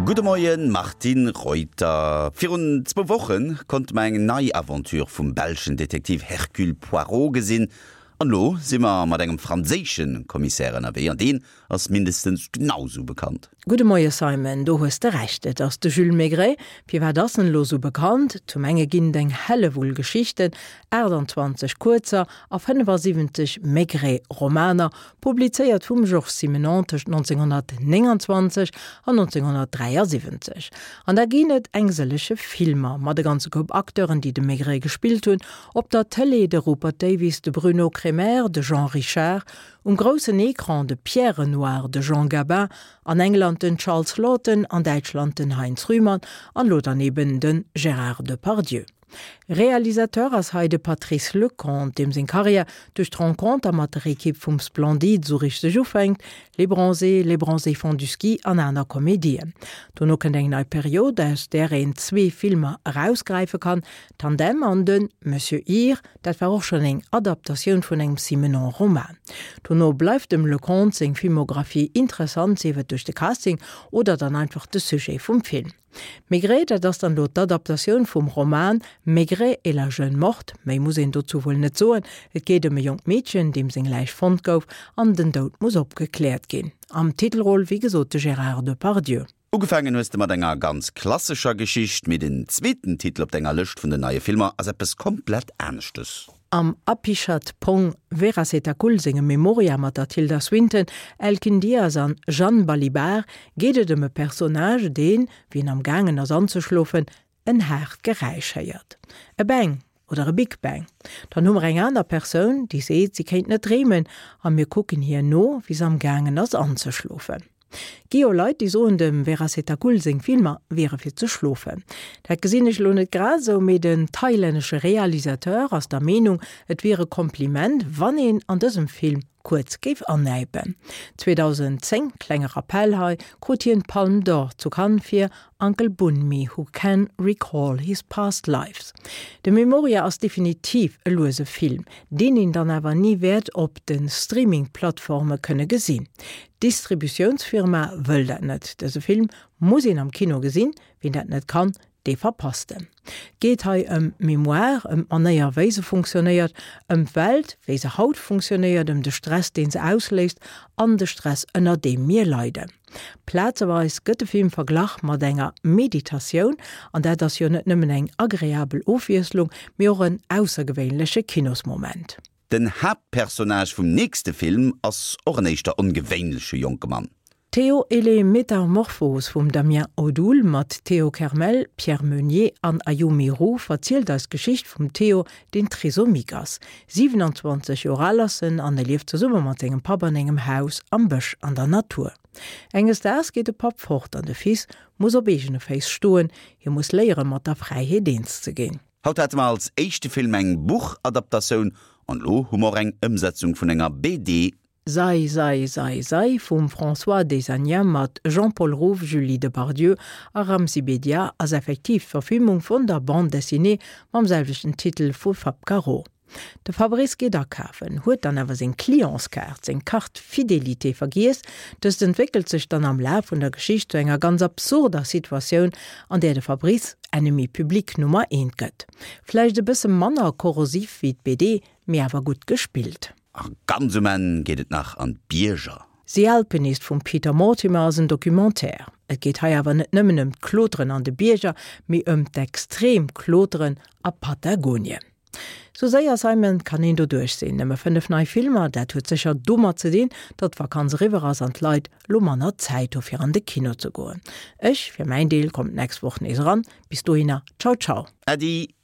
Gudde Moien, Martine Reuter. Virun zwou Woche konnte mer eng nei Aventure vum belschen Detektiv Hercule Poirot gesinn. An elo si mer mat engem franséische Commissaire ënnerwee, an deen ass mindestens genau sou bekannt. Gudde Moie Simon, do hues de Recht, et ass de Jules Maigret. Firwat ass en elo sou bekannt? Zum enge ginn et eng Hellewull Geschichten, 28 kuerzer a 75 Maigret-Romaner, publizéiert vum Georges Simenon tëscht 1929 an 1973. An da ginn et eng sëllege Filmer mat e ganze Koup Acteuren, déi de Maigret gespillt hunn, op der Tëlee de Rupert Davies, de Bruno Cremer, de Jean Richard, um groussen Ecran de Pierre Renoir, de Jean Gabin, an England den Charles Laughton, an Däitschland den Heinz Rühmann an elo dann eben de Gérard Depardieu. Realisateur ass hei de Patrice Leconte, deem seng Karriär duerch d'Renconter mat der Ekipp vum Splendide sou richteg ufänkt, Les Bronzés, Les Bronzés font du ski an aner Komedien. Dono kënnt eng nei Period, aus där een zwee Filmer erausgräife kann, Tandem an de Monsieur Ir, dat war och schonn eng Adaptatioun vun engem Simenon-Roman. Dono bleift dem Leconte seng Filmographie interessant, sief et duerch de Casting oder dann einfach de Sujet vum Film. Maigret, dat ass dann elo d'Adaptatioun vum Roman Maigret et la jeune morte. Méi muss een dozou wuel net soen. Et geet ëm e jonkt Meedchen, deem seng Läich fonnt gouf an den Doud muss opgekläert ginn. Am Titelrôle wéi gesot de Gérard Depardieu. Ugefaangen hues de mat enger ganz klassescher Geschicht, mee den zweeten Titel op denger Lëscht vun den neie Filmer ass eppes komplett aneschtes. Am Apichatpong Weerasethakul sengem Memoria mat der Tilda Swinton, Elkin Diaz an Jeanne Balibar geet et ëm e Personnage, deen, wéi en am gaangen ass anzeschlofen, en haart Geräisch héiert. E Bang oder e Big Bang. Dann hu mer eng aner Persoun, déi seet, si kéint net dreemen a mir kucken hir no, wéi se am gaangen ass anzeschlofen. Gi jo Leit, déi soen, dem Weerasethakul seng Filmer wiere fir ze schlofen. Dat gesinn ech elo net grad esou, mee den thailännesche Realisateur ass der Meenung, et wier e Kompliment, wann een an dësem Film kuerz géif annäipen. 2010, klenge Rappell hei, krut hien d'Palme d'Or zu Cannes fir Uncle Boonmee Who Can Recall His Past Lives. De Memoria ass definitiv e luese Film, deen een dann awer ni wäert op de Streaming-Plattforme kënne gesinn. D'Distributiounsfirma wëll dat net. Dëse Film muss een am Kino gesinn, wien dat net kann, dee verpasst en. Et geet hei ëm Mémoire, ëm d'Manéier wéi se funktionéiert, ëm d'Welt wéi se haut funktionéiert, ëm de Stress deen se ausléist an de Stress ënner deem mir leiden. Plazeweis gëtt de Film verglach mat enger Meditatioun, an dat ass jo net nëmmen eng agreabel Ofwiesslung, mee och en aussergewéinleche Kinosmoment. Den Haaptpersonnage vum nächste Film ass och en éischter ongewéinleche jonke Mann. Théo et les Métamorphoses vum Damien Odoul mat Théo Kermel, Pierre Meunier an Ayumi Roux verzielt eis d'Geschicht vum Théo, deen trisomique ass. 27 Joer al ass en an e lieft zesumme mat sengem Papp an engem Haus am Bësch an der Natur. Enges Daags geet de Papp fort an de Fils muss op eegene Féiss stoen, hie muss léiere mat der Fräiheet eens ze ginn. Haut hate mer als éischte Film eng Buchadaptatioun an elo hu mer och eng Ëmsetzung vun enger BD. Sei, sei, sei, sei vum François Desagnat mat Jean-Paul Rouve, Julie Depardieu a Ramzy Bedia ass effektiv d'Verfilmung vun der Bande dessinée mam selwechten Titel vu Fab Caro. De Fabrice geet akafen, huet dann awer seng Clientskaart, seng Carte Fidélité vergiess. Dëst entwéckelt sech dann am Laf vun der Geschicht zu enger ganz absurder Situatioun, an där de Fabrice Ennemi public Nummer eent gëtt. Vläicht e bësse manner korrosiv wéi d'BD, mee awer gutt gespillt. A ganz um Enn geet et nach an d'Bierger. The Alpinist vum Peter Mortimer ass en Documentaire. Et geet hei awer net nëmmen ëm d'Kloteren an de Bierger, mee ëm d'extrem Kloteren a Patagonien. Sou séier, Simon, kann een doduerch sinn. Nëmme 5 nei Filmer, dat huet sécher domat ze dinn, datt d'Vakanz eriwwer ass an d'Leit lo manner Zäit hu fir an de Kino ze goen. Ech fir mäin Deel kommen d'nächst Woch nees eran. Bis dohinner, ciao ciao. Äddi!